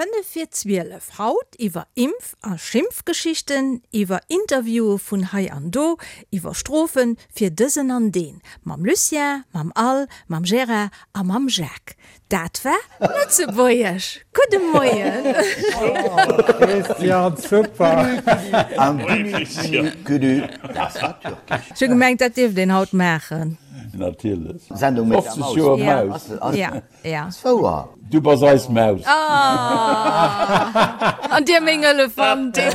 5 vir 12, haut iwwer Impf a Schimpfgeschichten, iwwer Interviewe vun hei an do, iwwer Strofe fir dësen an deen, mam Lucien, mam Al, mam Gérard a mam Jacques. Dat war Lëtzebuergesch. Gudde Moien! Christian, super! Ech hu gemengt, dat dierft een haut maachen. Natierlech. Sendung mit der 50 Maus. Joer Maus. Ja, ja. Ass wouer. Du bass eis Maus. Ah! An dir meng Elefantin.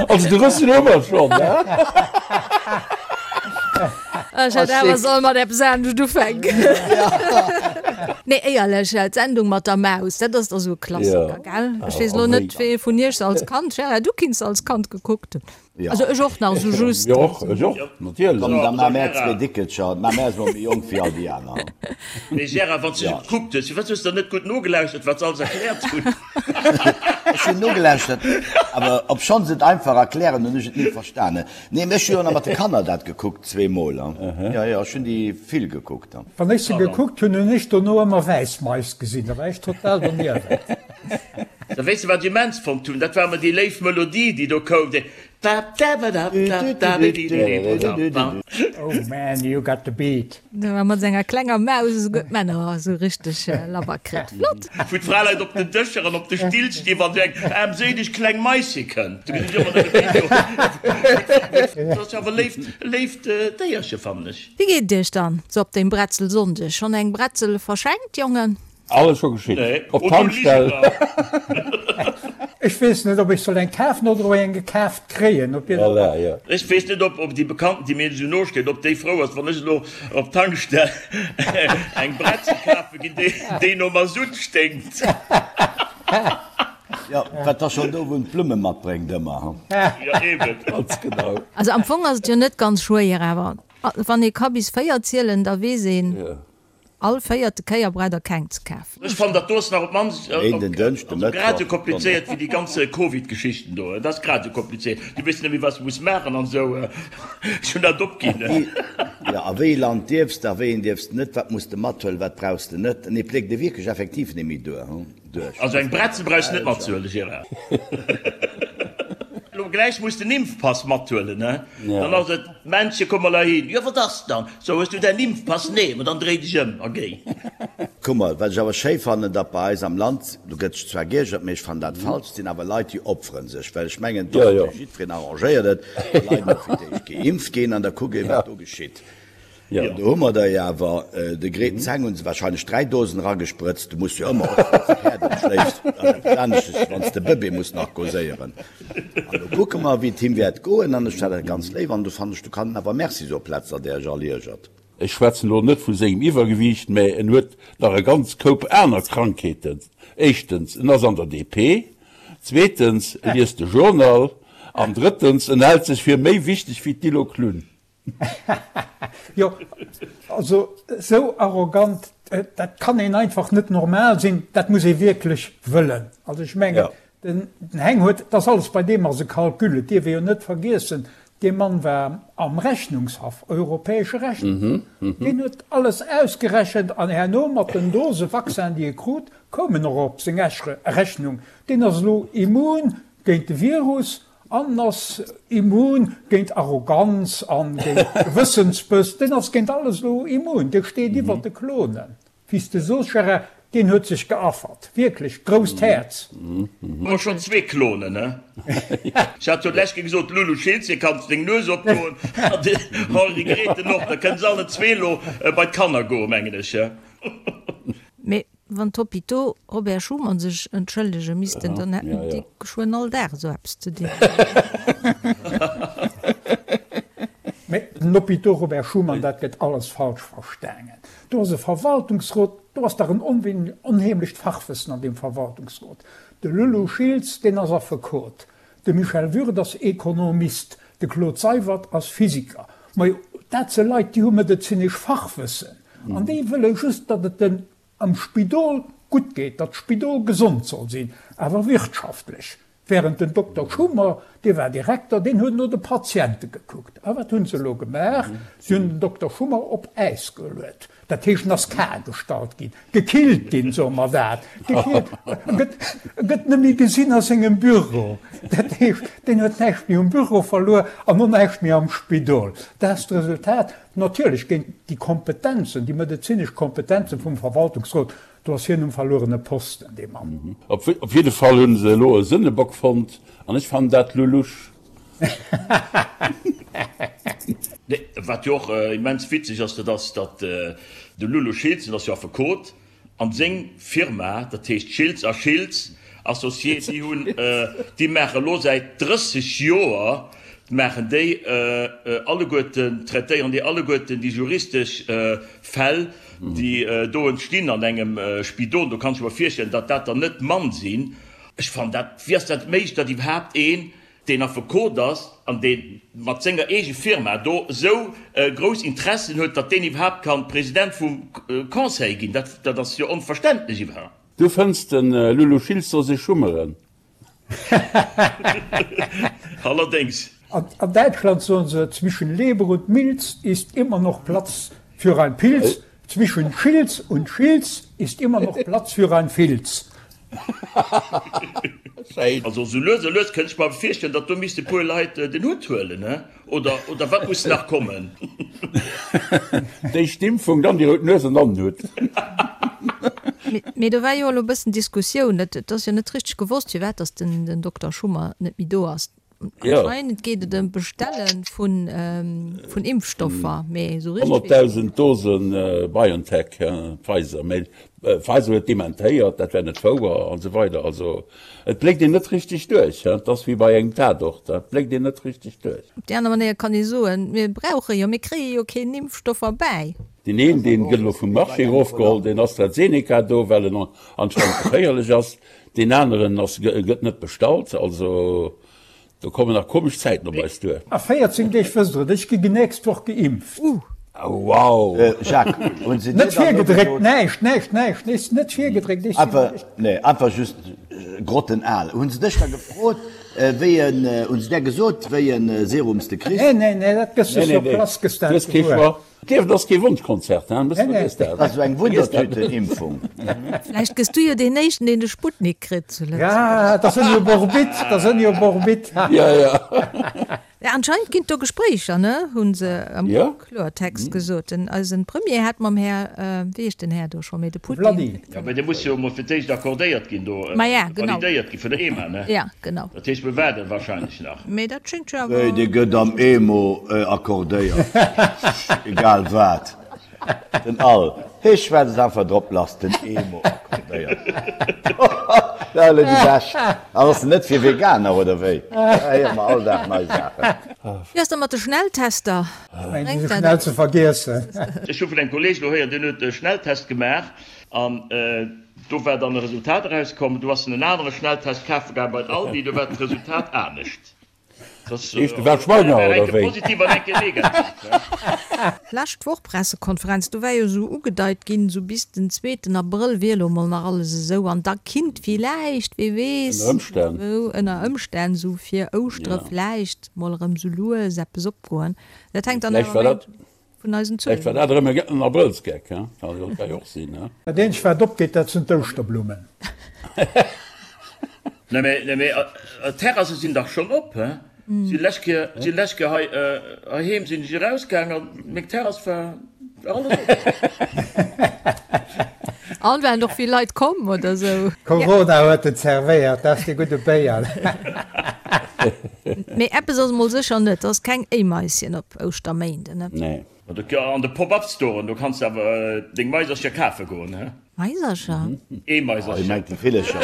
Also de Rëssen hu mer schonn, ne? Ech hätt awer soll mat eppes anescht ufänken. Nee, éierlech, d'Sendung mat der Maus, dat ass da sou e Klassiker, gell? Ech weess elo net, wee vun iech se als Kand, Gérard, du kinns se als Kand gekuckt hunn. Also ech och nach sou just. Jo, och, ech och, natierlech. Komm, da maache mär zwee Dickelcher. Mä mär si mol méi jonk wéi all déi aner. Mee Gérard, wann s du se gekuckt hues, firwat hues de dann net gutt nogelauschtert, wat se alles erkläert hunn? Ech hunn nogelauschtert, awer obschonn se et einfach erklären, hunn ech et ni verstanen. Nee, ech hu jo nach mat de Kanner dat gekuckt, zweemol. Jo, jo, ech hunn déi vill gekuckt. Wann ech se gekuckt hunn, hunn ech dono ëmmer wäiss Mais gesinn. Da war ech total doniewent. Da weess de wat ech immens fonnt hunn? Dat war ëmmer déi léif Melodie, déi do koum, déi. Oh man, you got the beat. Do war mat senger klenger Maus esouguer d'Männer esou richteg labber kritt. Flott! Wou d'Fraleit op den Dëscher an op de Still stinn, wann esou eng aarmséileg kleng Maische kënnt. Do gesinn ech ëmmer nëmme déi do. Dat ass jo awer e léift, léift Déierche, fannen ech. Wéi geet et iech dann sou op deem Bretzelsonndeg? Schonn eng Bretzel verschenkt, Jongen? Alles scho geschitt. Nee, Op oh, du Tankstell. Ligener! Ech weess net, ob ech soll eng kafen oder ob ech eng gekaaft kréien. Op jidde Voilà, jo. Ech weess net, ob déi Bekannten, déi mir esou no steet, ob déi frou ass, wann ech elo op d'Tankstell eng Bretzel kafe ginn, déi no Masutt sténkt. Jo, wat da schonn do wou en d'Blumme matbréngt ëmmer, ha? Jo, eben. Ganz genau. Also am Fong ass et jo net ganz schwéier, awer wann ee ka bis 4 zielen, da weess een, All véierte Kéier braucht der keng ze kafen. Ech fannen dat do ass nach op d'mannst Méinden, Dënschden, also grad Mëttwoch, esou komplizéiert wéi déi ganz Covid-Geschichten do. Dat ass grad esou komplizéiert. Du weess net méi wat s de muss maachen an esou. Ech hunn dat opginn. Jo, a wéi ee Land dierfs de, a wéi een dierfs de net, wat muss de mathuelen, wat brauchs de net. Nee, pléckt ee wierklech effektiv net méi duer, duerch. Also eng Bretzel brauchs de net matzehuelen, Gérard. Elo gläich muss den Impfpass mathuelen, ne? Dann ass et, Männche, komm mol heihin. Jo, wat ass dann? So, hues du däin Impfpass? Nee, ma dann dréi dech ëm a géi. Kuck mol, wat ech awer schéi fannen, datt bei eis am Land, do gëtt sech zwar geiergert, mee ech fannen dat falsch, et sinn awer Leit, déi opferen sech, well ech mengen, et ass fir jiddwereen arrangéiert et, wa Leit mol fir d'éischt geimpft ginn an da kuckt een, wat do geschitt. An do hu mer der jo awer, de Gret Zeng hu se wahrscheinlech 3 Dosen eragesprëtzt, du muss jo ëmmer, och wann s de Päerd schléifs, dat ass eppes anesches, wann s de Bëbee muss narkoséieren. An do kucke mer, wéi et him wäert goen. An ech fannen dat ganz léif an do fannen ech, do kann en awer Merci soen, plaz datt Der iech all iergert. Ech schwätzen elo net vu sengem Iwwergewiicht, mä en huet nach e ganz Koup aner Krankheeten. Éischtens, en ass an der DP, zweetens, e liest de Journal an drëttens, en hält sech fir méi wichteg wéi d'Dilo Klunn. Jo, also esou arrogant, dat kann een einfach net normal sinn, dat muss ee wierklech wëllen. Also ech mengen, den Heng huet, dat ass alles bei deem ass e Calcul, et dierf ee jo net vergiessen, dee Mann war am Rechnungshaff, europäesche Rechnungshaff, deen huet alles ausgerechent an herno mat den Dose Vaccin, déi e krut, koum en och op seng Rechnung. Deen ass elo immun géint de Virus An ass immun géint Arroganz an géint Gewëssensbëss. Deen ass géint alles elo immun. Dee steet iwwer de Klonen. Wéi s de soos, Gérard, deen huet sech geaffert. Wierklech, grousst Häerz. Hu mer schonn zwee Klonen, ne? Ech hat jo d'lescht Kéier gesot, Lulu Schiltz, kanns deng Nues opdoen, an den Henri Grethen och. Da kënne se allen zwee elo bei d'Kanner goen, mengen ech. Mee wann d'Hôpitaux Robert Schuman sech entschëllege missten, dann hätten déi geschwënn all Dag esou eppes ze dinn. Mee den Hôpitaux Robert Schuman, dat gëtt alles falsch verstaangen. Do ass e Verwaltungsrot, do ass dach en onheemlecht Fachwëssen an deem Verwaltungsrot. De Lulu Schiltz, deen ass Affekot, de Michel Würth ass Ekonomist, de Claude Seywert ass Physiker. Majo, dat si Leit, déi hu medezinesch Fachwëssen. An déi wëlle just, datt et den am Spidol gutt geet, datt d'Spidol gesond soll sinn, awer wirtschaftlech. Während den Dokter Schummer, dee war Direkter, deen huet no de Patiente gekuckt. A wat hunn se elo gemaach? Si hunn den Dokter Schummer op Äis geluet. Dat heescht, en ass kal gestallt ginn, gekillt ginn, soe mer dat, gekillt. E gëtt, e gëtt net méi gesinn a sengem Büro. Dat heescht, deen huet näischt méi um Büro verluer an och näischt méi am Spidol. Dat ass d'Resultat. Natierlech géint déi Kompetenzen, déi medezinesch Kompetenzen vum Verwaltungsrot, do ass hien um verluerene Posten, dee Mann. Op jidde Fall hunn se elo e Sënnebock fonnt an ech fannen dat lulusch. Nee, wat jo och immens witzeg ass, dat ass, datt de Lulu Schiltz, dat ass jo Affekot, an seng Firma, dat heescht Schiltz a Schiltz Associés, déi hunn, déi maache elo säit 30 Joer, maachen déi alleguerten, traitéieren déi alleguerten déi juristesch Fäll, déi do entstinn an engem Spidol. Do kann ech mer virstellen, datt dat der net mann sinn. Ech fannen dat, wéi ass dat méiglech, datt iwwerhaapt een, deen Affekot ass an dee mat senger eege Firma do esou grouss Interessen huet, datt deen iwwerhaapt kann President vum Conseil ginn? Dat, dat ass jo onverständlech iwwerhaapt. Du fënns den Lulu Schiltz soll sech schummeren. Allerdéngs. An Däitschland soen se, Zwischen Leber und Milz ist immer noch Platz für ein Pilz, zwischen Schilz und Schilz ist immer noch Platz für ein Filz. Schéin. Also sou lues a lues kënnt ech mer virstellen, datt do misst e puer Leit den Hutt huelen, he? Oder, oder wat muss nach kommen? D'éischt d'Impfung, dann déi rout Nues an dann den Hutt. Mee do war jo elo e bëssen Diskussioun. Et ass jo net richteg gewosst, firwat datt den Dokter Schummer net méi do ass. Anscheinend geet et ëm d'Bestelle vun Impfstoffer, mee esou richteg. 100.000 Dose BioNTech, Pfizer, mee Pfizer huet dementéiert, dat wär net wouer an esou weider. Also et bléckt een net richteg duerch, et ass wéi bei engem Tatort, et bléckt een net richteg duerch. Op déi aner Manéier kann ee soen, mir brauche jo, mir kréie jo keen Impfstoff erbäi. Deen een, deen gëtt elo vum Marché erofgeholl, deen AstraZeneca do, well en anscheinend geféierlech ass. Deen aneren ass, gëtt net bestallt. Also do kommen nach komesch Zäiten op eis duer. A 14 Deeg wësst der et, ech gi nächst Woch geimpft. Oh wow! Jacques, hunn se dir Net dann elo virgedréckt, gesot. näischt, näischt, näischt, nees net virgedréckt, ech sinn. Einfach, nee, einfach just grottenal. Hunn se dech da gefrot, wéi en, hunn se där gesot, wéi en Serum s de kriss? Nee, nee, nee, dat gëss de Nee, nee, sur nee, place, gëss du dat hues kee gewuer. Choix. D'Liewen ass kee Wonschkonzert, hein? Nee, nee. Dat ass esou eng Wundertüten-Impfung. Vläicht gëss du jo deen éischten, deen de Sputnik kritt zu Lëtzebuerg. Ja, da sinn jo op Orbit, da sinn jo op Orbit. Ja, ja. Ja, anscheinend ginn et do Gespréicher, ne? Hu se am Ja. Kloertext gesot. Den, eisen Premier hat mam Här, wéi heescht den Här do scho méi, de Putin. Vladi. Ja, mä dee muss jo emol fir d'éischt accordéiert ginn do, Ma ja, genau. validéiert gi vun der EMA, ne? Ja, genau. Dat heescht, mir waarden wahrscheinlech nach. Mee dat schéngt jo awer. Wéi, dee gëtt am EMO accordéiert, egal wat. Den Al, hee schwätzt einfach drop lass, den EMO accordéiert. Dat ass elo déi bescht. An ass en net fir Veganer, oder wéi? Da héiere mer all Dag nei Saachen. Wéi ass da mat de Schnelltester? Ech mengen, déi si schnell ze vergiessen. Ech hu vun engem Kolleeg elo héieren, deen huet e Schnelltest gemaach an do war dann e Resultat erauskomm. Do ass en en anere Schnelltest kafe gaangen bei den Aldi, do war d'Resultat anescht. Heescht de war schwanger oder wéi? Positiv an eng Kéier negativ. Lescht Woch Pressekonferenz, do war jo esou ugedeit ginn, esou bis den zweeten Abrëll wier elo mol nach alles esou an da kinnt villäicht, wee weess, Ënner Ëmstänn. esou ënner Ëmstänn esou fir Ouschtere vläicht mol erëm esou lues eppes opgoen. Dat hänkt dann Vläicht awer war méi dat vun eisen Vläicht war Zuelen dat erëm en Abrëllsgeck, he? Kann jo ka jo och sinn, he? Dat eenzegt wat opgeet, dat sinn d'Ouschterblummen. Nee mee, nee mee, d'Terrasse sinn dach schonn op, he? Si lescht Kéier, si lescht Kéier hei heiheem sinn ech erausgaang an meng Terrass war, war alles op. An waren och vill Leit komm oder sou? Corona huet en zerwéiert, dat ass dee gudde Béier. Mee eppes ass emol sécher net, ass keng Éimaischen op Ouschterméinden, ne? Nee. An de Pop-up-Storen, do kanns de awer deng Maisercher kafe goen, he? Maisercher? Eemaisercher. Hie mengt déi Villercher.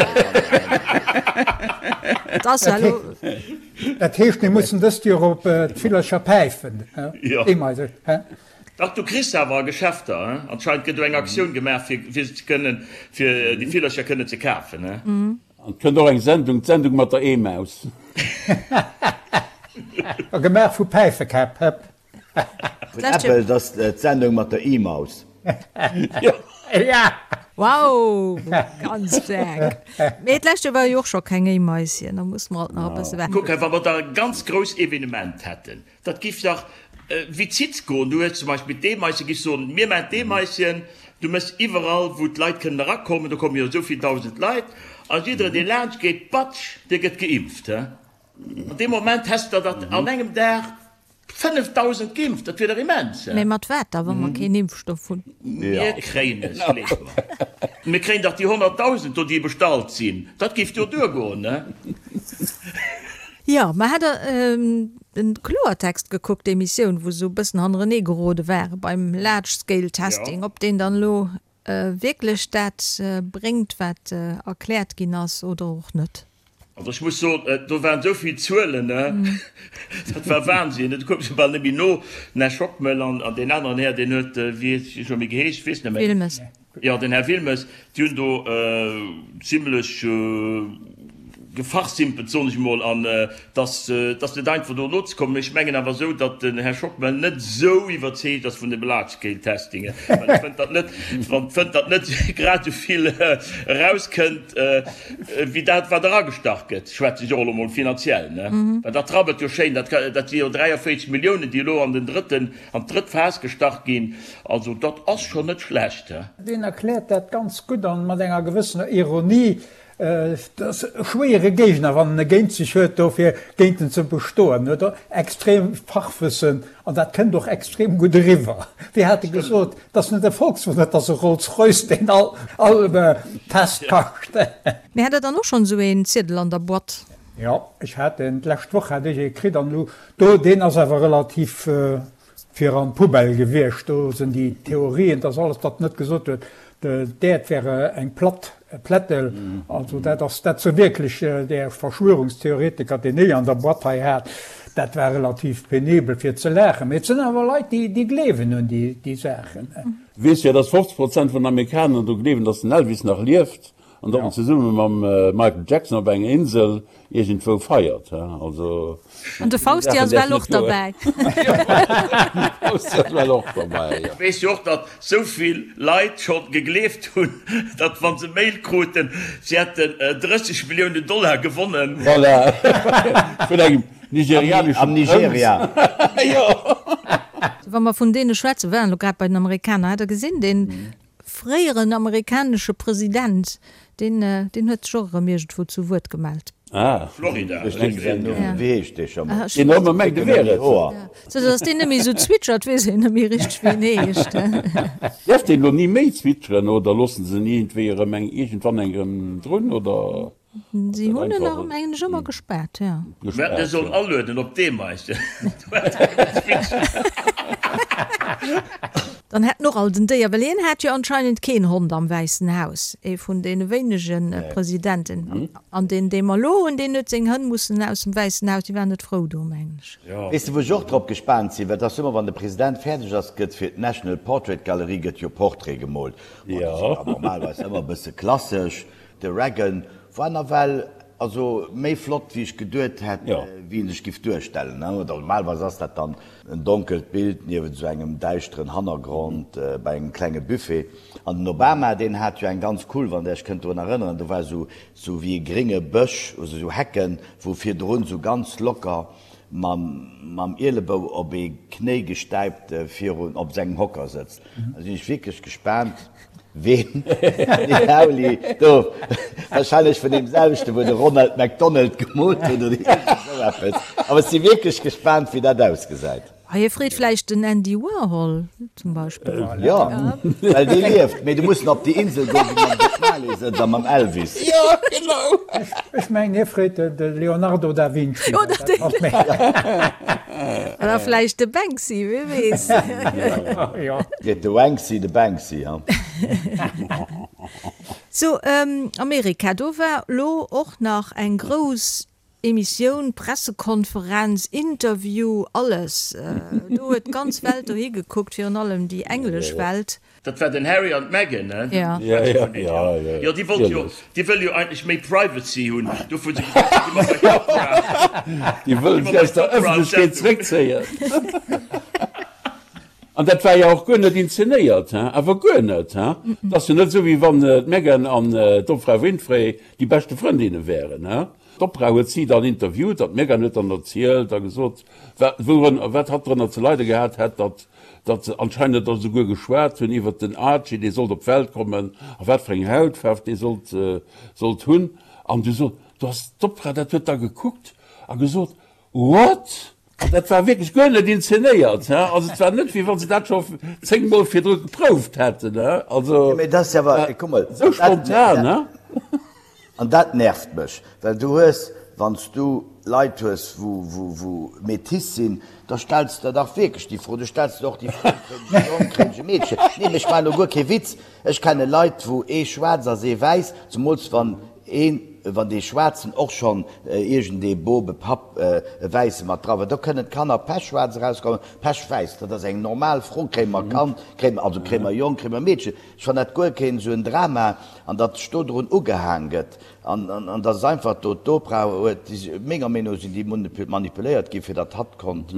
Et ass ja elo. Dat heescht, mir mussen dëst Joer op d'Villercher päifen, he? Eemaiser, he? Dach, du kriss se awer a Geschäfter, he? Anscheinend gëtt do eng Aktioun gemaach, fir se ze kënnen, fir déi Villercher kënnen ze kafen, he? An et kënnt och eng Sendung, d'Sendung mat der Eemaus. A gemaach vu Päifekäpp, hëpp. Vun Apple, et ass d'Sendung mat der E-Maus. Ja. Wow, ganz staark. Mee d'lescht Joer war jo och scho keng Éimaischen, da musse mer alt nach e bësse waarden. Kuck hei, wa mer da e ganz grouss Evenement hätten, dat giff dach wéi d'Zitz goen. Du hues zum Beispill d'Eemaischen, giffs soen, mir maachen d'Eemaischen, du méchs iwwerall, wou d'Leit kënnen erakommen, do komme jo esou vill 1.000 Leit, a jidderen, dee laanscht geet, batsch, dee gëtt geimpft. An deem Moment häss der dat an engem Dag 5.000 geimpft, dat wier dach immens. Mee mat wat da, wa mer keen Impfstoff hunn? Mir kréien es, gleef mer. Mir kréien dach déi 100.000 do, déi bestallt sinn. Dat géif jo duergoen, ne? Jo, mä hat Der den Kloertext gekuckt, d'Emissioun, wou se esou e bëssen hannerenee gerode ware beim Large Scale Testing, ob deen dann elo wierklech dat bréngt, wat erkläert ginn ass, oder och net? Also ech muss soen, do waren esou vill Zuelen, dat war Wahnsinn, do koum ech jo bal net méi no. Den Här Schockmel an deen aneren Här, deen huet, wéi huet hie scho méi geheescht, ech weess net méi. Wilmes. Jo, den Här Wilmes, déi hunn do zimlech gefachsimpelt, soen ech emol, an et ass, et ass net einfach do nozekommen. Mee ech mengen awer esou, datt den Här Schockmel net esou iwwerzeegt ass vun dem Large Scale Testing, well e fënnt, datt net, fënnt, datt net grad esou vill erauskënnt, Wéi dat, wat eragestach gëtt, schwätze ech och elo mol finanziell, ne? Well dat rabbelt jo schéin, dat, dat si jo 43 Milliounen, déi elo an den drëtten, an d'drëtt Phas gestach ginn. Also dat ass schonn net schlecht, he? Deen erkläert dat ganz gutt an mat enger gewëssener Ironie. Et ass e schwéiere Géigner, wann en e géint sech huet, do fir géint en ze bestoen. En huet extrem Fachwëssen an dat kënnt och extrem gutt eriwwer. Wéi hat e gesot? Et ass net e Volkswagen, et ass e Rolls-Royce, deen all Test kascht. Mee hat der dann och schonn esou een Ziedel an der Boîte? Jo, ech hat en, d'lescht Woch hat ech ee kritt an elo do, deen ass awer relativ fir an d'Poubelle gewiescht. Do sinn déi Theorien, dass alles, wat en net gesot huet, d'Äerd wär eng platt Plättel. Also dat ass dat sou wierklech där Verschwörungstheoretiker, deen ech an der Boîte hei hat, dat war relativ penibel fir ze laachen. Mee et sinn awer Leit, déi gleewen un déi Saachen. Du weess jo, dass 50 Prozent vun den Amerikaner dru gleewen, dass den Elvis nach lieft an datt en zesumme mam Michael Jackson op enger Insel iergendwou feiert. Also An de Fausti ass well och derbäi. Fausti ass well och derbäi, jo. Weess jo och, datt sou vill Leit scho gegleeft hunn, datt wa se Mail kruten, si hätten 30 Milliounen Dollar gewonnen. Voilà, vun engem nigerianeschen Am Nigeria. Jo. Wa mer vun deene schwätzen, waren elo grad bei den Amerikaner, hat Der gesinn, deen Fréieren amerikanesche President, deen deen huet sech och erëm iergendwou zu Wuert gemellt. Ah. Florida. Wéi heescht dee scho mol? Deen ëmmer mengt e wier et. Sou datt deen net méi esou zwitschert, weess een net méi richteg wéi en heescht. Däerf deen elo ni méi zwitscheren oder loossen se en iergendwéi erëm eng iergendwann eng erëm drun oder? Si hunn en nach, mengen ech, ëmmer gespaart, jo. Mir hätten e sollen alueden op d'Eemaischen. Dann hätt en och alt en Déier, well hien hat jo anscheinend keen Hond am Wäissen Haus, ee vun deene wéinege Presidenten. An deen, dee mer elo hunn, deen huet seng Hënn mussen aus dem Wäissen Haus, déi waren net frou do, mengen ech. Weess de, wou ech och drop gespaant sinn? Well et ass ëmmer, wann de President fäerdeg ass, gëtt fir d'National Portrait Gallery gëtt jo Portrait gemoolt. Bon, déi sinn da normalerweis ëmmer e bësse klassesch. De Reagan war nawell also méi flott wéi ech geduet hätt wéi en sech giff duerstellen. Normalerweis ass dat dann en donkelt Bild niewent esou engem däischteren Hannergrond bei engem klenge Buffet. An den Obama deen hat jo eng ganz cool, wann der iech kënnt drun erënneren, do war esou esou wéi e grénge Bësch, also esou Hecken, wou virdrun esou ganz locker mam Ielebou op ee Knéi gestäipt virun op sengem Hocker sëtzt. Da sinn ech wierklech gespaant, ween den Rauli do, wahrscheinlech vun deem selwechten, wou de Ronald McDonald gemoolt huet oder iergend esou eppes. Awer ech si wierklech gespaant, wéi dat ausgesäit. Hie freet vläicht den Andy Warhol zum Beispill. Jo, well dee lieft. Mee du muss en op déi Insel goen, wou mam Bob Marley sëtzt a mam Elvis. Jo, genau. Ech mengen, hie freet de Leonardo da Vinci. Oder den. Oder vläicht de Banksy, wie weess. Jo. Freet de Wanksy de Banksy, ha? Sou, Amerika, do war lo och nach eng grouss Emissioun, Pressekonferenz, Interview, alles. Do huet d'ganz Welt dohi gekuckt, virun allem déi englesch Welt. Dat war den Harry an d'Meghan, ne? Ja. Ja, ja, ja, ja. Jo, déi wollt jo, déi wëll jo eigentlech méi Privacy hunn. Dofir hu se gesot, si gi mer bei d'Oprah. Déi wëllen sech aus der Ëffentlechkeet zréckzéien. An dat war jo och guer net inzenéiert, hein, awer guer net, hein. Et ass jo net esou, wéi wann d'Meghan an d'Oprah Winfrey déi beschte Frëndinne wären, hein. D'Oprah huet si dann interviewt an d'Meghan huet dann erzielt a gesot, wat, wourun, wat hatt drënner ze leide gehat hätt, datt, datt se anscheinend da souguer geschwat hunn iwwert den Archie, dee sollt op d'Welt kommen a wat fir eng Hautfaarf dee sollt, sollt hunn. An du sot, du ass d'Oprah, dat huet da gekuckt a gesot, What? An dat war wierklech guer net inzenéiert, he? Also et war net, wéi wa se dat scho zéngmol virdru geprouft hätten, he? Also, Mee dat ass jo awer, kuck mol, esou spontan, he? An dat nervt mech, well du hues, wann s du Leit hues, wou, wou, wou métis sinn, da stells de der dach wierklech déi Fro. Du stells der och déi Fro, kréien ech e Jong, kréien ech e Meedchen? Nee, mee ech maachen elo guer kee Witz. Ech kenne Leit, wou ee schwaarz ass, ee wäiss, zemools wann een, wann dee Schwaarzen och schonn iergendee Boob, e Papp, e Wäisse mat dra war, do kënnen d'Kanner pechschwaarz erauskommen, pechwäiss. Dat ass eng normal Fro, Kréie mer e Kand, kréie mer, also kréie mer e Jong, kréie mer e Meedchen? Ech fannen dat guer keen esou en Drama, an datt sech do drun ugehaang gëtt, an, an datt et einfach do d'Oprah huet, menger Meenung no sinn déi manipuléiert gi fir datt hatt konnt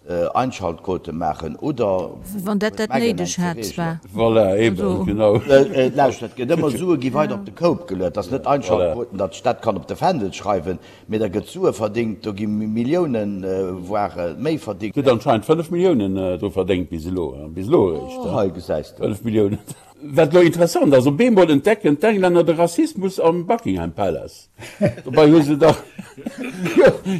Einschaltquote maachen oder Wann dat dat néideg hätt, zwar. Voilà, eben, genau. Lauschtert, et gëtt ëmmer Sue gi weider op de Koup geluet. Dat ass net Einschaltquoten, datt ech dat kann op de Fändel schreiwen, mee da gëtt Sue verdingt, do gi Milliounen, voire méi verdingt. Huet anscheinend 5 Milliounen dru verdéngt bis elo, bis elo eréischt. Oh, hei gesäis de. 5 Milliounen. Wat elo interessant ass, op eemol entdecken d'Englänner de Rassismus am Buckingham Palace. Dobei hu se dach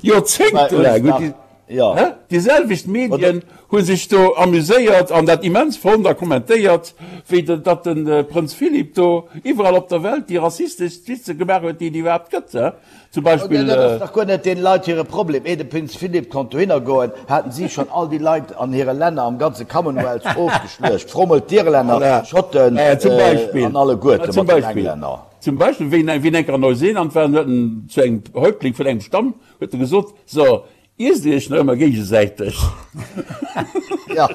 joerzéngtelaang hunn déi. Jo. Déi selwecht Medien hu sech do amuséiert an dat immens fonnt a kommentéiert, wéi datt de Prënz Philip do iwwerall op der Welt déi rassisteschst Witze gemaach huet, déi et iwwerhaapt gëtt. Zum Beispill. Dat ass dach guer net deene Leit hire Problem. Eer de Prinz Philip konnt dohinner goen, haten si schonn all déi Leit an hire Länner, am ganze Commonwealth, ofgeschluecht. Fro mol d'Irlänner, d'Schotten an alleguerte mat den Englänner. Zum Beispill, wéi en eng Kéier an Neuseeland war, huet en zu engem Häuptling vun engem Stamm huet e gesot, So, Iesst Dir Iech nach ëmmer géigesäiteg? Ja.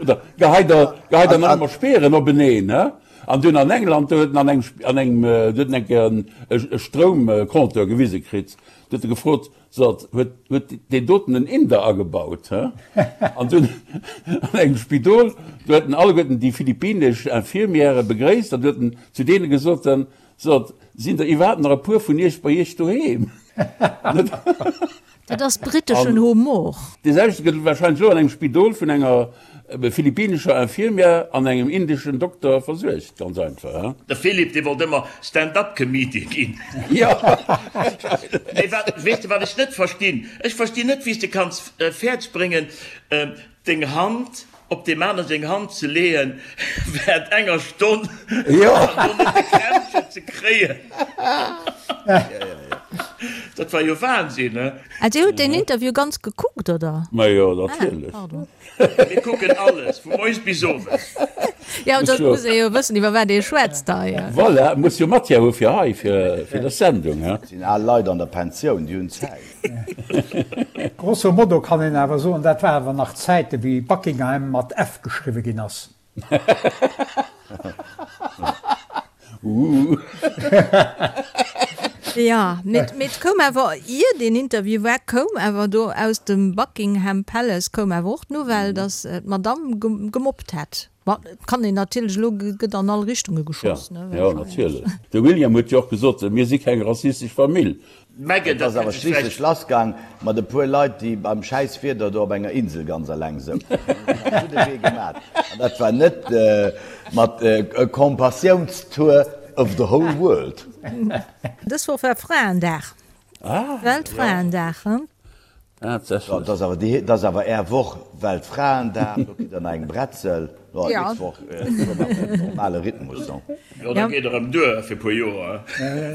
Oder geheit Der, geheit Der nach ëmmer Speeren openeen, he? An dunn an England, do huet en an engem, an engem, do huet en eng Kéier en, e Stroumcompteur gewise kritt. Do huet e gefrot, So, huet, huet deen doten en Inder agebaut, he? An dunn an engem Spidol, do huet en alleguerten déi philippinesch Infirmièrë begréisst an du huet en zu deene gesot, So, sinn der iwwerhaapt nach e puer vun Iech bei Iech doheem? Dat ass britteschen Humor. Dee selwechte gëtt warscheinlech elo an engem Spidol vun enger philippinescher Infirmière an engem indeschen Dokter versuergt. Ganz einfach, he? De Philippe, dee wollt ëmmer Stand-up-Comedian ginn. Jo. Mee wat, weess de wat ech net verstinn? Ech verstinn net, wéi s de kanns fäerdeg bréngen, deng Hand op deem anere seng Hand ze leeën während enger Stonn an do net e Krämpchen ze kréien. Dat war jo Wahnsinn, he? Ah, Dir hutt deen Interview ganz gekuckt, oder? Ma jo, natierlech. Ah, pardon. Mir kucken alles, vu moies bis owes. Jo, da muss ee jo wëssen, iwwer wat ee schwätzt hei. Voilà, muss jo Matière hu fir hei, fir dës Sendung, he? Dat sinn al Leit an der Pensioun, déi hunn Zäit. Grosso modo kann een awer soen, dat war awer nach Zäiten, wéi Buckingham mat F geschriwwe ginn ass. Jo, mee et koum awer, ier deen Interview war, koum awer do aus dem Buckingham Palace koum awer och d'Nouvelle, datt d'Madamm gemobbt hätt. Ma et kann een natierlech, elo gëtt an all Richtunge geschoss, ne? Jo, natierlech. De William huet jo och gesot, mir si keng rassistesch Famill. Meghan, Et dat ass awer hätt ech vläicht. schliisslech lassgaang mat e puer Leit, déi beim schäiss Wieder do op enger Insel ganz eleng souzen. Déi hunn sech am gudde Wee gemat. An dat war net mat e Compassiounstour of the whole world. Dës Woch war Fraendag, Weltfraendag. Dat ass awer déi, dat ass awer Är Woch, Weltfraendag, do kritt Der nach eng Bretzel. Jo, nächst Woch fuere mer op den normale Rhythmus, non? Jo, dat geet erëm duer fir e puer Joer.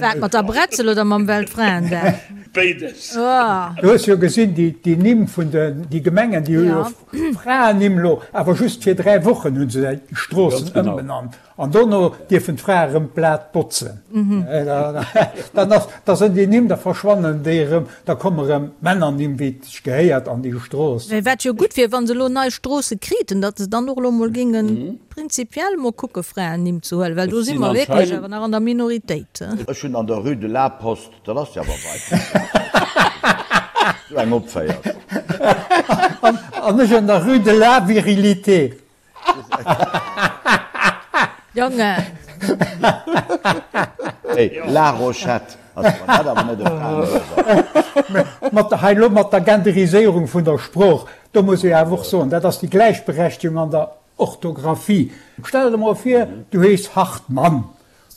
Wat, mat der Bretzel oder mam Weltfraendag? Béides. Du hues jo gesinn, déi Nimm vun den, déi Gemengen, déi hu jo Fraennimm elo, awer just fir 3 Wochen hu se déi Stroossen ëmbenannt. An dono dierfen d'Frae erëm d'Blat botzen. Dann ass, da sënn déi Nimm, da verschwannen déi erëm, da komme erëm Männernimm, wéi et sech gehéiert, an déi Strooss. Wat jo gutt wier, wa se elo nei Stroosse kriten, datt se dann och elo mol géinge prinzipiell mol kucke Fraennimm ze huelen, well do si mer wierklech awer nach an der Minoritéit. Ech hunn an der Rue de la Poste, dat ass jo awer weit vun der Sou eng opféiert. An ech an der Rue de la Virilité. Jongen! Hey, La Rochette ass wann dat awer net e Fraenduerf ass. Mat hei elo mat der Genderiséierung vun der Sprooch, do muss ee awer och soen, dat ass déi Gläichberechtigung an der Orthographie. Stell der emol vir, du heeschs Hartmann,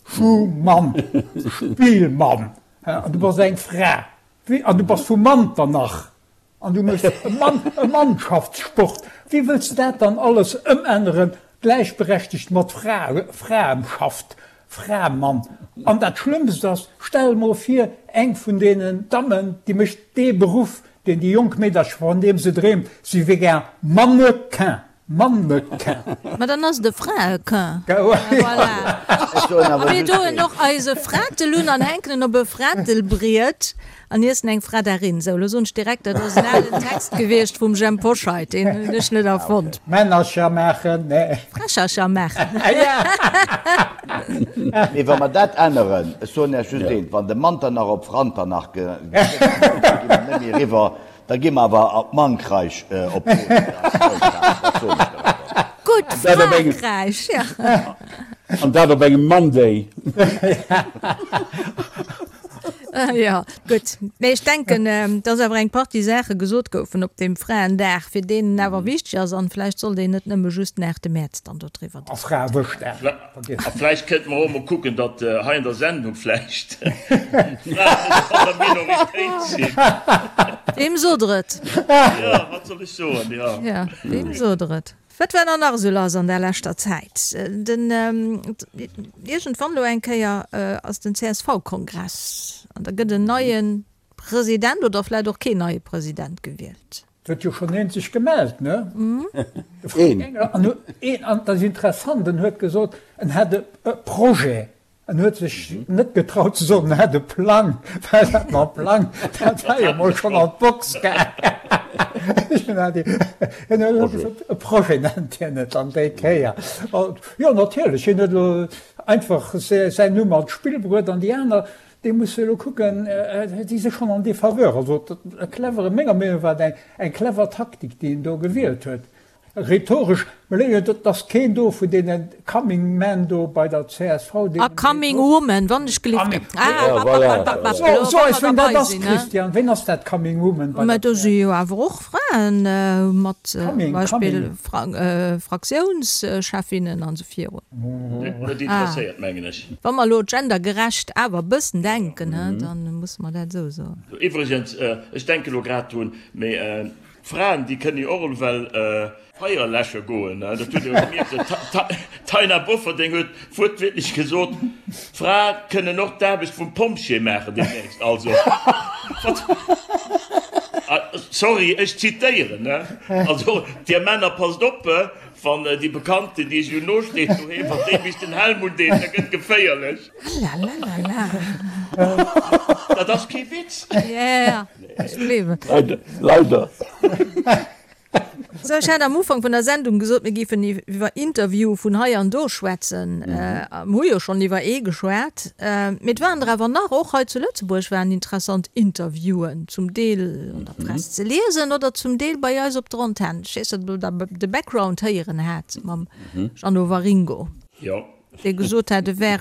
Schumann, Spielmann an du bass eng Fra an du bass vu Manternach an du méchs e Mann, e Mannschaftssport. Wéi wëlls de dat dann alles ëmänneren, gläichberechtegt mat Fra, Fraemschaft, Framann? An dat Schlëmmst ass, stell emol vir, eng vun deenen Dammen, déi mécht dee Beruff, deen déi jonk Meedercher, vun deem se dreemt, si wier gär Mannequin. Mannequin. Ma dann ass et e Fraequin. Voilà. A mir doen och eise Fratel un an hänken en op e Fratelbriet an iessen eng Fradarin. Sou, lo soen ech direkt, dat ass en alen Text gewiescht vum Jhemp Hoscheit, deen hunn ech net erfonnt. Männercher maachen, nee. Frächercher maachen. Mee wa mer dat änneren, ech soen Iech just eent, wann de Manternach op Franternach gëtt, da gi mer net méi eriwwer. Da gi mer awer op Mankreich op Gutt, Frankräich, jo. An dat op engem Monday. Jo, gutt. Mee ech denken, dass awer eng Partie Saache gesot goufen op deem Fraendag, fir deen en awer wichteg ass. An vläicht sollt een net nëmme just den 8 Mäerz dann dodriwwer A Fraewëschdag. Vergiess. A vläicht kënnte mer och emol kucken, datt hei an der Sendung vläicht d'Fraen net an der Minoritéit sinn. Weem sot der et? Jo, wat soll ech soen, jo. Jo, weem sot der et? Wat war dann nach esou lass an der leschter Zäit? Den, iergendwann elo eng Kéier ass den CSV-Kongress an da gëtt en neie President oder vläicht och keen neie President gewielt. Et huet jo schonn een sech gemellt, ne? De Frank Engel. An een, an dat ass interessant, en huet gesot, en hätt e Projet. En huet sech net getraut ze soen, en hätt e Plang, well dat mam Plang, dat war jo mol schonn an d'Box gaangen. En huet gesot, e Projet nennt hien et dann déi Kéier. Jo, natierlech, hien huet elo einfach säin Numm an d'Spill bruet an déi aner, Déi musse elo kucken, déi si schonn en défaveur. Also e clevere, menger Meenung no war et eng clever Taktik, déi en do gewielt huet. Rhetoresch, et ass keen do vun deene Coming Men do bei der csv, deenen. A Coming Woman, wann ech gelift. So eis, ween dat ass, Christian, ween ass dat Coming Woman bei der csv? Mä do si jo awer och Fraen mat zum Beispill Fraktiounschefinnen an esou virun. Net interesséiert, mengen ech. Wa mer elo gendergerecht awer e bëssen denken, da musse mer dat esou soen. Iwwregens, ech denke elo grad drun, mee d'Fraen, déi kënne jo och ewell Feier läsche goen. Dat hutt Dir jo gemierkt. D'Taina Bofferding huet wuertwiertlech gesot, d'Frae kënnen och d'Aarbecht vum Pompjee maachen deemnächst. Also, wat? Sorry, ech zitéieren. Also, Dir Männer, passt op, Wann déi Bekannten, déi esou no steet doheem, wann déi bis den Helm undeet, da gëtt geféierlech. Lalalala. Dat ass kee Witz. Ja, ech gleewen. Leider. Sou, ech hat am Ufank vun der Sendung gesot, mir géifen iwwer Interviewe vun hei an do schwätzen. Mir hu jo schonn iwwer ee geschwat. Mee et waren der awer nach, och hei zu Lëtzebuerg waren interessant Interviewen, zum Deel an der Press ze liesen oder zum Deel bei eis op der Antenn. Ech weess net, ob Der de Background héieren hat mam Jeannot Waringo, dee gesot hat, e wär,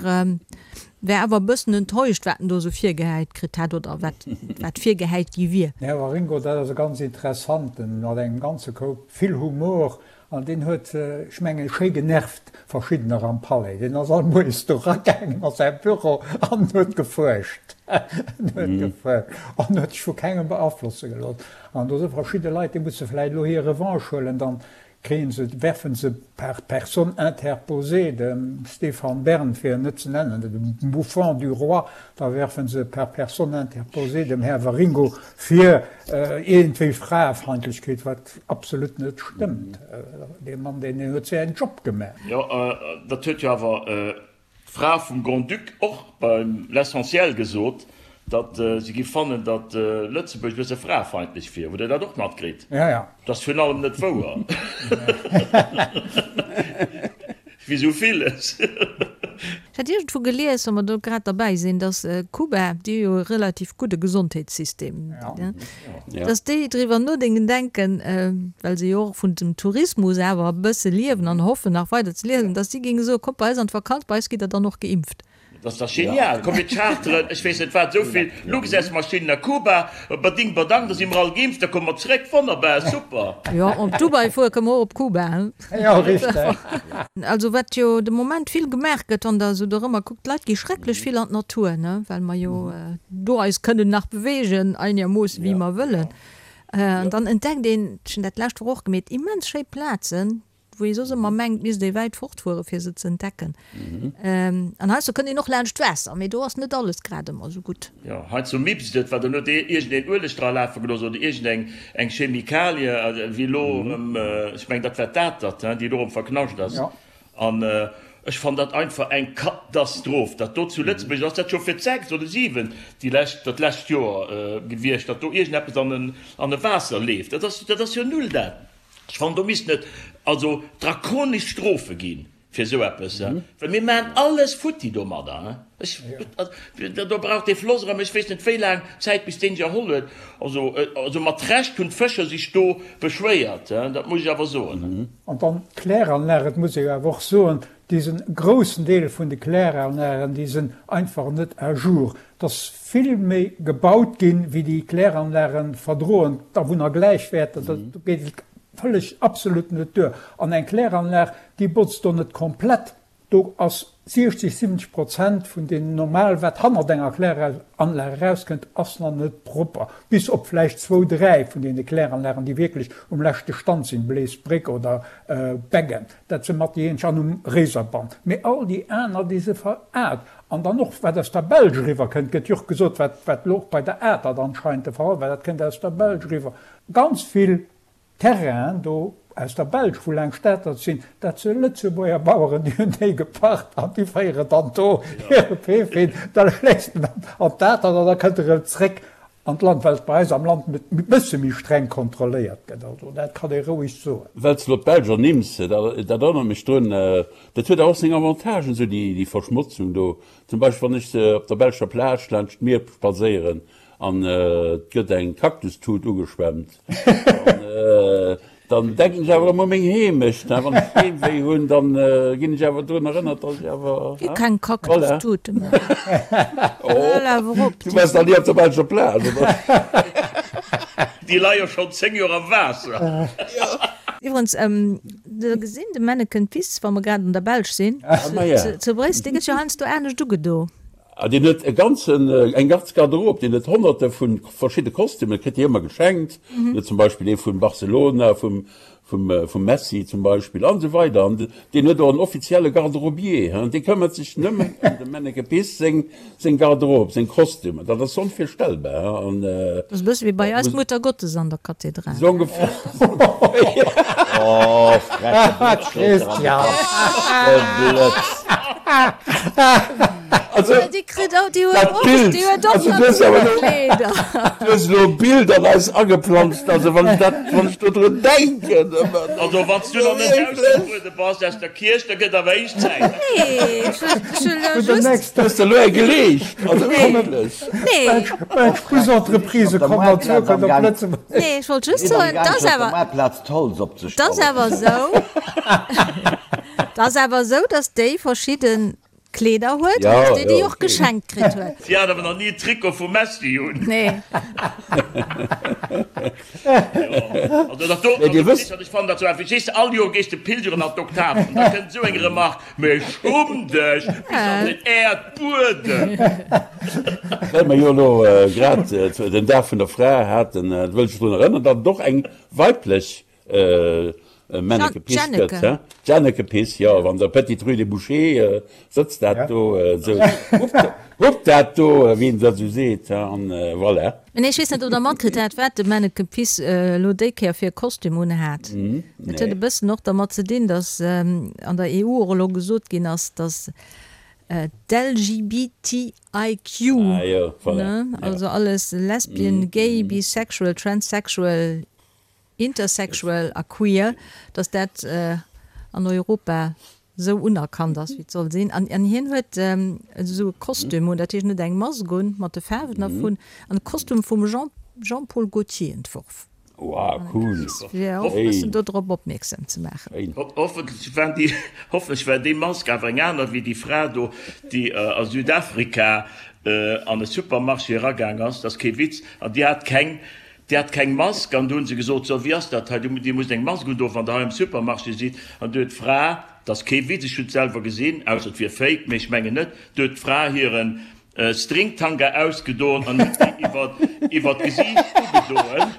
wär awer e bëssen enttäuscht, wat en do esou virgehäit kritt hätt oder wat, wat virgehäit gi wier. Den Här Waringo, dat ass e ganz interessanten, mat engem ganze Koup vill Humor An deen huet, ech mengen, schéi genervt verschiddener am Palais. Deen ass all Moies do eragaangen a säi Büro an huet gefuerscht. En huet gefuerscht an huet sech vu kengem beaflosse gelooss. An do si verschidde Leit, déi musse vläicht elo hir Revanche huelen. Dann kréie se, werfe se par personne interposée dem Stéphane Bern, fir en net ze nennen, dem Bouffon du roi, da werfe se par personne interposée dem Här Waringo vir iergendwéi Fraefeindlechkeet, wat Absolut net stëmmt. Dee Mann, deen huet säin Job gemaach. Jo, dat huet jo awer d'Fra vum Grand-Duc och beim L'Essentiel gesot, datt si giff fannen, datt Lëtzebuerg e bësse fraefeindlech wier. Hutt Der dat och matkritt? Ja, ja. Dat ass virun allem net wouer. Wéi sou villes. Ech. Ech hat iergendwou gelies, wa mer do grad derbäi sinn, datt Kuba, déi hu jo e relativ gudde Gesondheetssystem, datt déi driwwer nodenken, denken, well se jo och vun dem Tourismus awer e bësse liewen an hoffen nach weider ze liewen, datt si géinge soen, kommt bei eis an d'Vakanz, bei eis gitt der dann och geimpft. Dat ass dach genial! Komm mir charteren, ech weess net wat, esou vill Luxusmaschinen a Kuba, bading badang, da si mer all geimpft, da komme mer zréck, wonnerbar, super! Jo, op Dubai fuere kënne mer och op Kuba, he? Jo, richteg. Also wat jo de Moment vill gemaach gëtt, wann Der esou dorëmmer kuckt, d'Leit gi schrecklech vill an d'Natur, ne, well mer jo do eis kënnen nach beweegen, einermoosse wéi mer wëllen. An dann entdeckt een, ech hunn dat d'lescht Woch och gemeet, immens schéi Plazen, wou ee soss ëmmer mengt, misst ee wäit fortfuere fir se ze entdecken. An heiansdo kënnt een och laanscht d'Waasser, mee do ass net alles grad ëmmer esou gutt. Jo, heiansdo mippst et, well dann huet iergendeen Ueleg dra lafe gelooss oder iergendeng eng Chemikalie, wéi elo erëm, ech mengen dat war d'Atert, déi elo erëm verknascht ass. An ech fannen dat einfach eng Katastroph, dat do zu Lëtzebuerg, ass dat scho fir d'sechst oder siwent déi lescht, dat lescht Joer gewiescht, datt do iergendeppes an e Waasser leeft. Dat ass, dat ass jo null dat. Ech fannen, do missten et also drakonesch Strofe gi fir esou eppes, well mir maachen alles futti domadder. Ech, do brauch dee Floss erëm ech weess net wéi laang Zäit, bis deen sech erholl huet. Also, also mat Recht hunn d'Fëscher sech do beschwéiert, dat muss ech awer soen. An dann d'Kläranlag, et muss ee jo awer och soen, Desen groussen Deel vun de Kläranlagen, déi sen einfach net à jour. Et ass vill méi gebaut ginn, wéi déi Kläranlagen verdroen. D'Awunner gläichwäerten, do geet et vëlleg absolut net duer. An eng Kläranlag, déi botzt do net komplett. Do ass 60, 70 Prozent vun deem normal, wat hannert enger Kläranlag erauskënnt, ass nach net propper. Bis op vläicht zwou, dräi vun deene Kläranlagen, déi wierklech um leschte Stand sinn, Bleesbréck oder Beggen. Dat se mat déi eenzeg an um Réiserband. Mee all déi aner, déi se veraart. An dann och, wat aus der Belsch eriwwer kënnt, gëtt jo och gesot, wat, wat elo och bei der Atert anscheinend de Fall war, dat kënnt aus der Belsch eriwwer. Ganz vill Terrainen do aus der Belsch, wou laang Statert sinn, dat se Lëtzebuerger Baueren, déi hunn déi gepacht an déi féieren dann do hire Piff hin. Da léisst en an d'Atert an da kënnt e rëm zréck An d'Land, well et bei eis am Land e bësse méi streng kontrolléiert gëtt. Also dat kann ee roueg soen. Well s de elo d'Belsch ernimms, dat erënnert mech drun, dat huet awer och seng Avantagen, esou déi Verschmotzung do. Zum Beispill wann ech op der belscher Plage laanscht d'Mier spadséieren an et gëtt eng Kaktustut ugeschwemmt, dann Dann denken ech awer ëmmer u meng Heemecht. Wann ech Heemwéi hunn, dann ginn ech awer drun erënnert, dass ech awer. Gi keng Kaktustute méi. Hal awer op. Du waars nach ni op der belscher Plage, oder? Déi leie schonn 10 Joer am Waasser. Iwwerens, de gesinn de Menneken Piss, wa mer grad an der Belsch sinn, zu Bréissel, dee gëtt jo heiansdo anescht ugedo. Ah, deen huet e ganzen, eng ganz Garderobe, deen huet honnerte vu verschidde Kostümen, kritt déi ëmmer geschenkt. Deen huet zum Beispill ee vun Barcelona, vum, vum, vum Messi zum Beispill an esou weider. An deen huet och en offizielle Garderobier, hein, dee këmmert sech nëmmen ëm dem Menneke Piss seng, seng Garderobe, seng Kostümer. Dat ass onvirstellbar, hein, an. Dat ass e bësse wéi bei eis d'Mutter Gottes an der Kathedral. Esou ongeféier. Oh, freche Blëtz, Christian! De Blëtz! Also, Déi kritt och, déi huet dat och, Bild, déi huet och also du hues awer elo, Kleeder. du hues elo e Bild an eis ageplanzt, also wann ech dat, wann ech do drun denken, ëmmer, Also wann s du nach net ausgetruede bass aus der Kierch, da gëtt awer héich Zäit. Nee, ech hunn, ech hunn elo Vun der just. nächster. Du hues der elo eng geleescht, also Nee, wierklech. nee. Belsch Busentreprise Op der kommen an Moartplaz Zukunft am op Gang. Lëtzebuerg. Nee, ech wollt just Sinn am soen, Gang 't ass fir op der awer, Moartplaz d'Holz 't ass opzestellen. awer esou, 't ass awer esou, dass déi verschidden Kleeder huet an dass déi déi och geschenkt kritt huet. Si hat awer nach ni e Trikot vum Messi un. Nee. Jo, also dat do, also Christian, ech fannen dat sou einfach, weess de, all Joer gees de pilgeren an d'Oktav an da kënnt esou eng Remarque, Mee schumm dech bis an den Äerdbuedem! Well mer jo elo grad den Dag vun der Fra haten, wëll ech drun erënneren, datt et och eng weiblech Menneke Piss gëtt, he? D'Janneke Piss, jo, an der Petite Rue des Bouchers sëtzt dat do esou, huppt dat do, wéi een dat esou seet, he, an voilà. Mä nee, ech weess net, ob Der matkritt hat, wat de Menneke Piss elo déi Kéier fir e Kostüm unhat. Dat huet e bëssen och dermat ze dinn, datt an der EU och elo gesot ginn ass, datt d'LGBTIQ, ne, also alles Lesbian, Gay, Bisexual, Transsexual, Intersexual a queer, datt dat an Europa. Esou unerkannt ass wéi et soll sinn. An hien huet esou e Kostüm un, dat heescht en huet eng Mask un mat de Faarwen dervun an e Kostüm vum Jean, Jean-Paul Gaultier entworf. Wow, cool! Fir och e bëssen do drop opmierksam ze maachen. Hoffentlech war déi, hoffentlech war déi Mask awer eng aner wéi déi Fra do, déi a Südafrika an e Supermarché eragaang ass, dat ass kee Witz, an déi hat keng, Déi hat keng Mask an du hunn se gesot, so wéi ass dat hei, Dir musst eng Mask undoen, wann Der hei am Supermarché sidd. An du huet d'Fra, dat ass kee Witz, ech hunn et selwer gesinn, ausser et wier fake, mee ech mengen net, du huet d'Fra hire Stringtanga ausgedoen an huet déi iwwer iwwer d'Gesiicht ugedoen.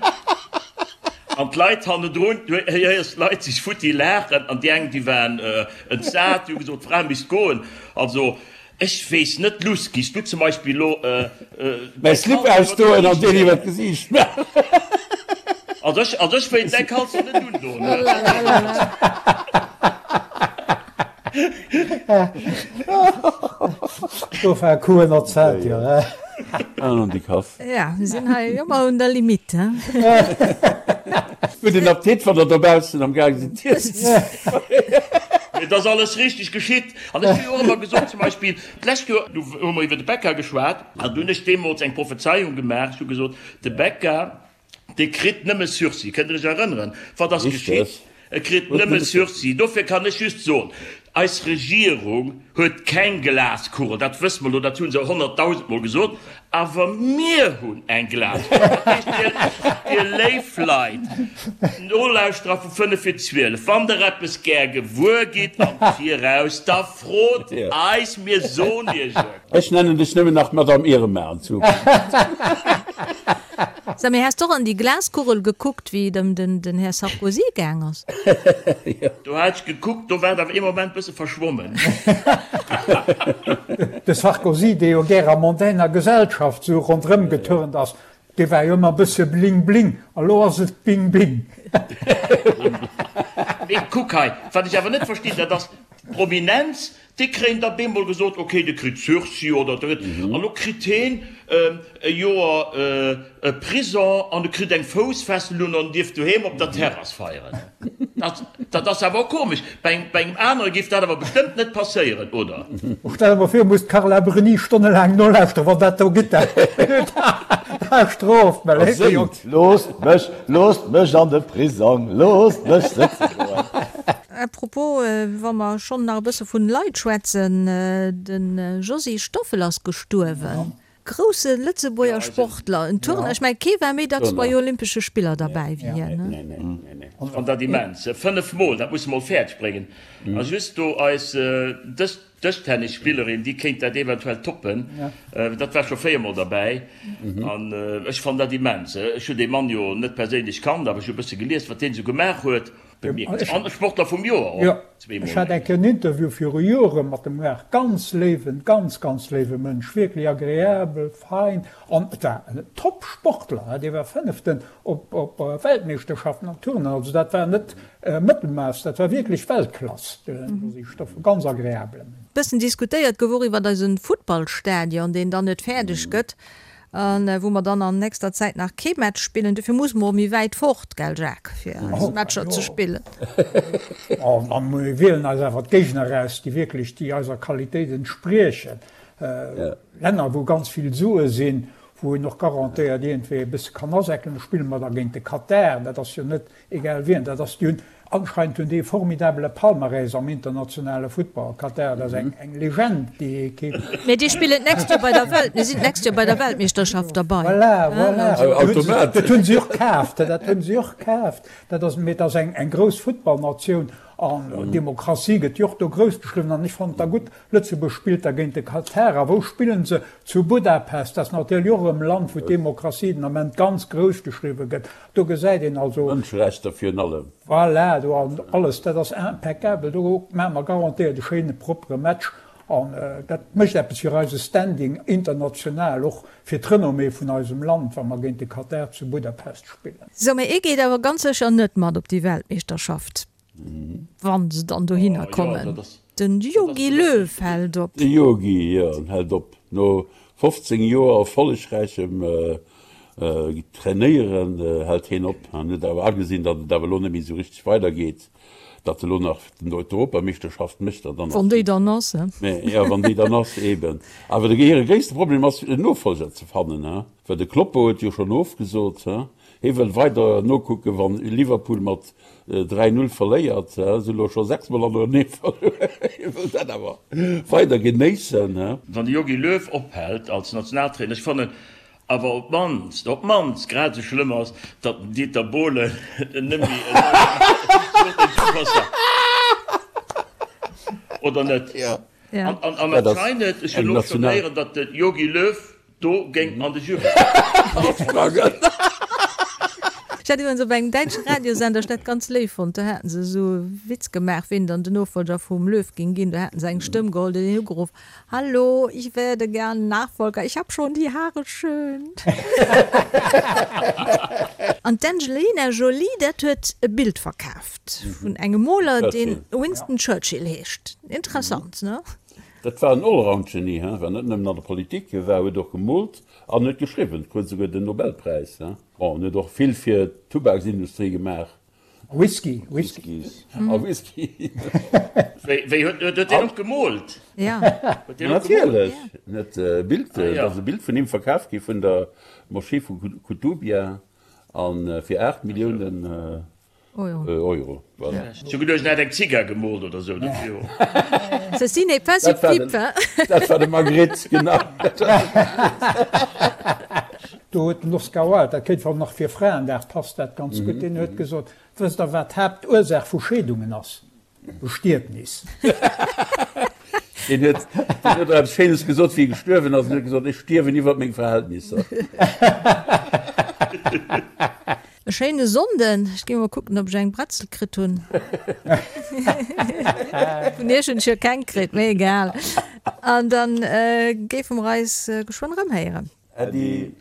An d'Leit hannendrun, du héiers d'Leit sech futti laachen an déi eng, déi waren entsat, déi hu gesot, d'Fra misst goen. Also Ech weess net Luss, giss du zum Beispill lo mäi Slip ausdoen an deen iwwer d'Gesiicht maachen? Also ech, also ech wéilt däi Kalzer net undoen. Do war Kuh ënnerzelt, jo. An déi Kass. Ja, mir sinn hei ëmmer un der Limite, he. Gudden Appetit, wann der dobaussen am gaang sidd z'iessen. Mee et ass alles richteg geschitt. An ech hu jo och ëmmer gesot, zum Beispill d'lescht Joer, du hu mer iwwer de Becca geschwat, an du hunn ech deemools eng Prophezeiung gemaach, ech hu gesot, de Becca, dee kritt nëmme Sursis. Kënnt Der Iech erënneren? Wat ass geschitt? E kritt nëmme Sursis. Dofir kann ech just soen, Eis Regierung huet keng Glaskugel, dat wësse mer elo, dat hu se honnertdausendmol gesot, awer mir hunn eng Glaskugel. Dat heescht, Dir, Dir léif Leit, Nolauschterer vu 5 vir 12, wann Der eppes gär gewuer gitt am Viraus, da frot eis, mir soen Iech et. Ech nennen dech nëmmen nach Madame Irma an Zukunft. Sag, mee has d'och an déi Glaskugel gekuckt wéi et ëm den Här Sarkozy gaang ass? Do hat ech gekuckt, do war et awer ee Moment bësse verschwommen. De Sarkozy, dee jo gär a mondainer Gesellschaft sou ronderëm geturnt ass, dee war jo ëmmer e bësse bling bling, a lo ass et bing bing. Mee kuck hei, wat ech awer net verstinn, dat ass d'Prominenz, Déi kréien da bemol gesot, ok, de kritt Sursis oder de kritt, an lo kritt heen e Joer Prison an e kritt eng Foussfessel un an dierf doheem op der Terrass feieren. Dat, dat ass awer och komesch. Bei engem, bei engem anere géif dat awer bestëmmt net passéieren, oder? Stell der mol vir, muss d'Carla Bruni stonnelaang nolauschteren, wann dat do gitt, dat Strof, mä séngt. Loosst mech, loosst mech an de Prisong, loosst mech sëtze goen. À propos, wa mer schonn nach e bësse vun Leit schwätzen, de Josy Stoffel ass gestuerwen. Grousse Lëtzebuerger Sportler, en Turner, ech mengen kee war méi dacks bei Olympesche Spiller derbäi wéi hien, ne? An dat immens, 5 mol, dat muss e mol fäerdeg bréngen. A just do eis dës Dëschtennisspillerin, déi kéint dat eventuell toppen, dat war scho 4 mol derbäi. An ech fannen dat immens. Ech hunn dee Mann jo net perséinlech kannt, awer ech hu e bësse gelies, wat deen esou gemaach huet. Bemierkenswert. An Sportler vum Joer och Jo, zweemol. ech hat eng Kéier en Interview viru Jore mat dem gemaach. Ganz léiwen, ganz, ganz léiwe Mënsch, wierklech agreabel, fein an et war en Top-Sportler, dee war Fënneften op op Weltmeeschterschaften am Turnen. Also dat war net Mëttelmaass, dat war wierklech Weltklass, de Josy Stoffel, ganz agreabele Mënsch. Bëssen diskutéiert gouf och iwwert eisen Futtballstadion, deen dann net fäerdeg gëtt. A wou mer dann an nächster Zäit nach kee Match spillen. Dofir musse mer och méi wäit fort, gell Jacques, fir eis Matcher ze spillen. Oh, a mir wielen eis awer d'Géigner eraus, déi wierklech déi eiser Qualitéit entspriechen. Länner, wou ganz vill Sue sinn, wou een och garantéiert iergendwéi e bësse kann asäckelen. Do spille mer da géint de Katar, dat ass jo net Egal wien dat ass, déi hunn anscheinend hunn déi e formidabele Palmarès am internationale Futtball. Katar, dat ass eng eng Legend, déi Ekipp. Mee déi spillen d'nächst Joer bei der Welt, mir sinn d'nächst Joer bei der Weltmeeschterschaft derbei. Voilà, voilà. Automatesch. Dat hunn si och kaaft, dat hunn si och kaaft. Dat ass, mee et ass eng eng grouss Futtballnatioun an Demokratie gëtt jo och do grouss geschriwwen an ech fannen et da gutt, Lëtzebuerg spillt da géint de Katar. A wou spillen se? Zu Budapest. Dat ass natierlech och erëm e Land, wou d'Demokratie den Ament ganz grouss geschriwwe gëtt. Do gesäit een also. Mënscherechter virun allem. Voilà, do an alles, dat ass impeccabel. Do maache mer garantéiert e schéine proppere Match. An dat mécht eppes fir eise Standing international, och fir d'Renommée vun eisem Land, wa mer géint de Katar zu Budapest spillen. Sou, mä ee geet awer ganz sécher net mat op déi Weltmeeschterschaft. Wann se dann dohinner kommen. Den Jogi Löw hält op. De Jogi, jo, en hält op. No 15 Joer erfollegräichem Trainéieren hält hien op. En huet awer agesinn, datt et awer elo net méi esou richteg weidergeet. Datt elo nach d'Europameeschterschaft mécht, dann ass. Wann déi dann ass, he? Mä jo, wann déi dann ass, eben. Awer de hire gréisste Problem ass, en Nofolger ze fannen, he? Well de Kloppo huet jo schonn ofgesot, he? Hie wëll weider nokucken, wann Liverpool mat 3, 0 verléiert, he? Se hu lo scho 6 mol hannerenee verluer. Hie wëll dat awer weider genéissen, he? Wann de Jogi Löw ophält als Nationaltrainer, ech fannen, Awer op d'mannst, op d'mannst grad esou schlëmm ass, datt den Dieter Bohlen net méi esou Oder net? An anscheinend, ech hunn och schonn héieren, datt de Jogi Löw do géing an de Jury sprangen. Ech hat iwwerens op engem däitsche Radiosender, ech dat ganz léif fonnt, do haten se esou e Witz gemaach, ween dann den Nofolger vum Löw géing ginn. Do haten se eng Stëmm geholl, déi hunn ugeruff, Hallo, ich werde gern Nachfolger, ich hab schon die Haare schön. An d'Angelina Jolie, dat huet e Bild verkaaft vun engem Moler, deen Winston Churchill heescht. Interessant, ne? Dat war en Allround-Genie, he, war net nëmmen an der Politik, hie war, huet och gemoolt an huet geschriwwen, krut esouguer den Nobelpräis, he. Bon, en huet och vill fir d'Tubaksindustrie gemaach. Whisky, Whisky. A Whisky. Wéi huet huet deen och gemoolt? Ja. Huet deen och gemoolt? Natierlech. Net e Bild, et ass e Bild vun him verkaf gi vun der Moschee vu Koutoubia a fir 8 Milliounen Euro. Voilà. Ech hu geduecht, en hätt eng Zigar gemoolt oder sou. Ceci n'est pas une pipe, hein? Dat war de Magritte, genau. Do huet den Oscar Wilde, dat kéint nach fir Fraendag passt dat ganz gutt, deen huet gesot, Wësst Der, wat d'Haaptursaach vu Scheedungen ass? Bestietnis. Deen huet, deen huet och eppes Schéines gesot, wéi e gestuerwen ass. En huet gesot, Ech stierwen iwwert meng Verhältnisser. E schéine Sonnden. Ech gi mol kucken, ob ech eng Bretzel kritt hunn. Vun iech hunn ech jo keng kritt, mee egal. An dann géife mer eis geschwënn erëmhéieren. Äddi.